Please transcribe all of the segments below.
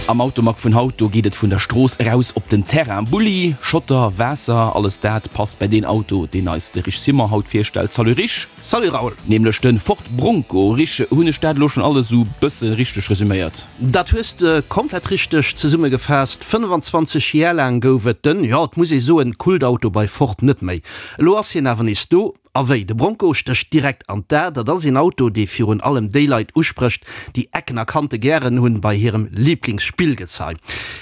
Am Automag vun haut, do geet et vun der Strooss eraus op den Terrain. Bulli, Schotter, Waasser, alles dat passt bei deen Auto, deen eis de Rich Simon haut virstellt. Salut Rich! Salut Raoul! Nämlech de Ford Bronco. Rich, hunn ech dat elo schonn alles esou bësse richteg resüméiert? Dat hues de komplett richteg zesummegefaasst. 25 Jar laang gouf et den, jo et muss ee soen, Kultauto bei Ford net méi. Elo ass hien awer nees do. A wéi? De Bronco stécht direkt an d'A. Dat ass een Auto, dee virun allem déi Leit usprécht, déi Ecken a Kante gären hunn bei hirem Liblingsspillgezei.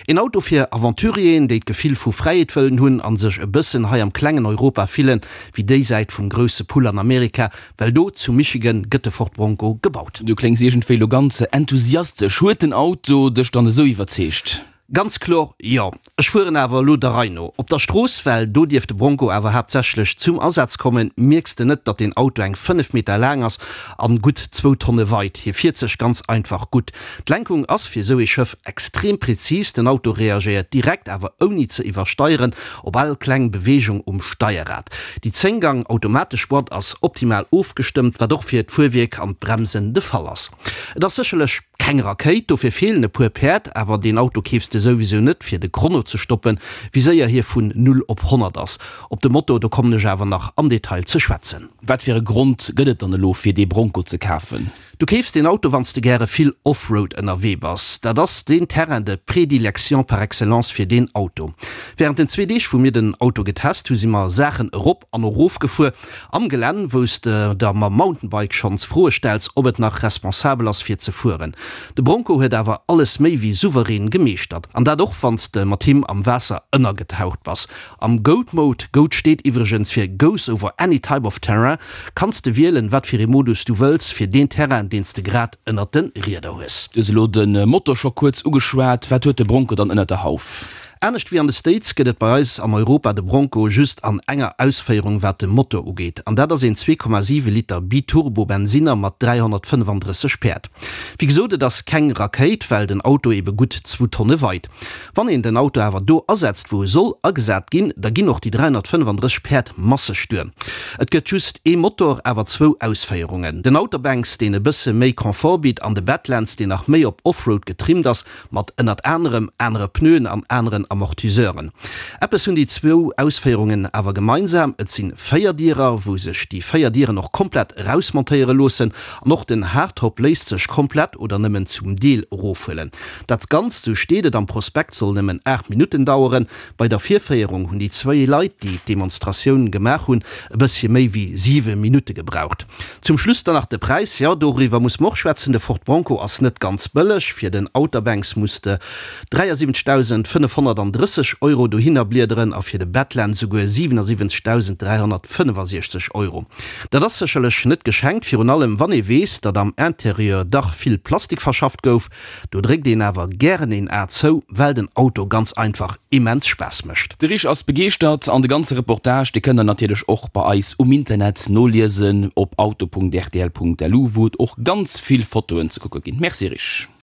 Een Auto fir Aventurieren, déi d'Gefill vu Fräiheet wëllen hunn an sech e bëssen hei am klengen Europa fillen, wéi déi Säit vum grousse Pull an Amerika, well do zu Michigan gëtt de Ford Bronco gebaut. Du kléngs iergendwéi lo ganz enthusiastesch. Huet den Auto dech dann esou iwwerzeegt? Ganz kloer jo. Ech fueren awer elo der Rei no. Op der Strooss, well do dierf de Bronco awer haaptsächlech zum Asaz kommen, mierks de net, datt deen Auto eng 5 Meter laang ass an gutt zwou Tonne weit. Hie fiert sech ganz einfach gutt. D'Lenkung ass fir esou ee Schëff extrem präzis, den Auto reagéiert direkt, awer ouni ze iwwersteieren, op all kleng Beweegung um Steierrad. Déi 10 Gang automatesch Boîte ass optimal ofgestëmmt, wat och fir d'Fuerwierk an d'Bremsen de Fall ass. Et ass sécherlech keng Rakéit, dofir feelen e puer Päerd, awer deen Auto keefs de souwisou net fir de Chrono ze stoppen, wéi séier hie vun 0 op 100 ass. Op de Motor, do kommen ech awer nach am Detail ze schwätzen. Wat fir e Grond gëtt et dann elo fir dee Bronco ze kafen? Du keefs deen Auto wanns de gäre vill Offroad ënnerwee bass. Dat ass deen Terrain de prédilection par excellence fir deen Auto. Während den zwee Deeg wou mir den Auto getest hu si mer Saachen erop an erof gefuer am Gelänn wous de der mam Mountainbike schonns Froe stells ob et nach responsabel ass fir ze fueren. De Bronco huet awer alles méi wéi souverän gemeeschtert an dat och wanns de mat him am Waasser ënnergetaucht bass. Am Goat Mode, Goat steet iwwregens fir Goes over any type of terrain, kanns de wielen, wat fir ee Modus du wëlls fir deen Terrain, deen s de grad ënnert de Rieder hues. Du hues elo de Motor scho kuerz ugeschwat. Wat huet de Bronco dann ënnert der Hauf? Anescht wéi an de States gëtt et bei eis an Europa de Bronco just an enger Ausféierung wat de Motor ugeet, an dat ass een 2,7 Liter Biturbo Bensinner mat 335 Päerd. Wéi gesot, et ass keng Rakéit, well den Auto ebe gutt zwou Tonne weit. Wann een den Auto awer do asetzt wou e soll agesat ginn, da ginn och déi 335 Päerd masseg duer. Et gëtt just ee Motor, awer zwou Ausféierungen, den Outer Banks deen e bësse méi Confort bitt an de Badlands deen nach méi op Offroad getrimmt ass, mat ënnert anerem anere Pneuen an aneren Amortiseuren. Eppes hunn déi zwou Ausféierungen awer gemeinsam, et sinn Véierdierer, wou sech déi 4 Dieren och komplett erausmontéiere loossen an och den Hardtop léisst sech komplett oder nëmmen zum Deel erofhuelen. Dat Ganzt, sou steet et am Prospekt, soll nëmmen 8 Minutten daueren. Bei der Virféierung hunn déi zwéi Leit, déi d'Demonstratioun gemaach hunn, e bëssche méi wéi 7 Minutte gebraucht. Zum Schluss dann nach de Präis, jo, doriwwer muss mer och schwätzen. De Ford Bronco ass net ganz bëlleg. Fir den Outer Banks muss de 73.530 Euro dohinner bliederen a fir de Badland souguer 77.365 Euro. Dat ass sécherlech net geschenkt, virun allem wann ee weess, datt am Interieur dach vill Plastik verschafft gouf. Do dréckt een awer gären een A zou, well den Auto ganz einfach immens Spaass mécht. De Rich ass begeeschtert an de ganze Reportage, dee kënnt der natierlech och bei eis um Internet noliesen op auto.rtl.lu, wou et och ganz vill Fotoen ze kucke ginn. Merci Rich.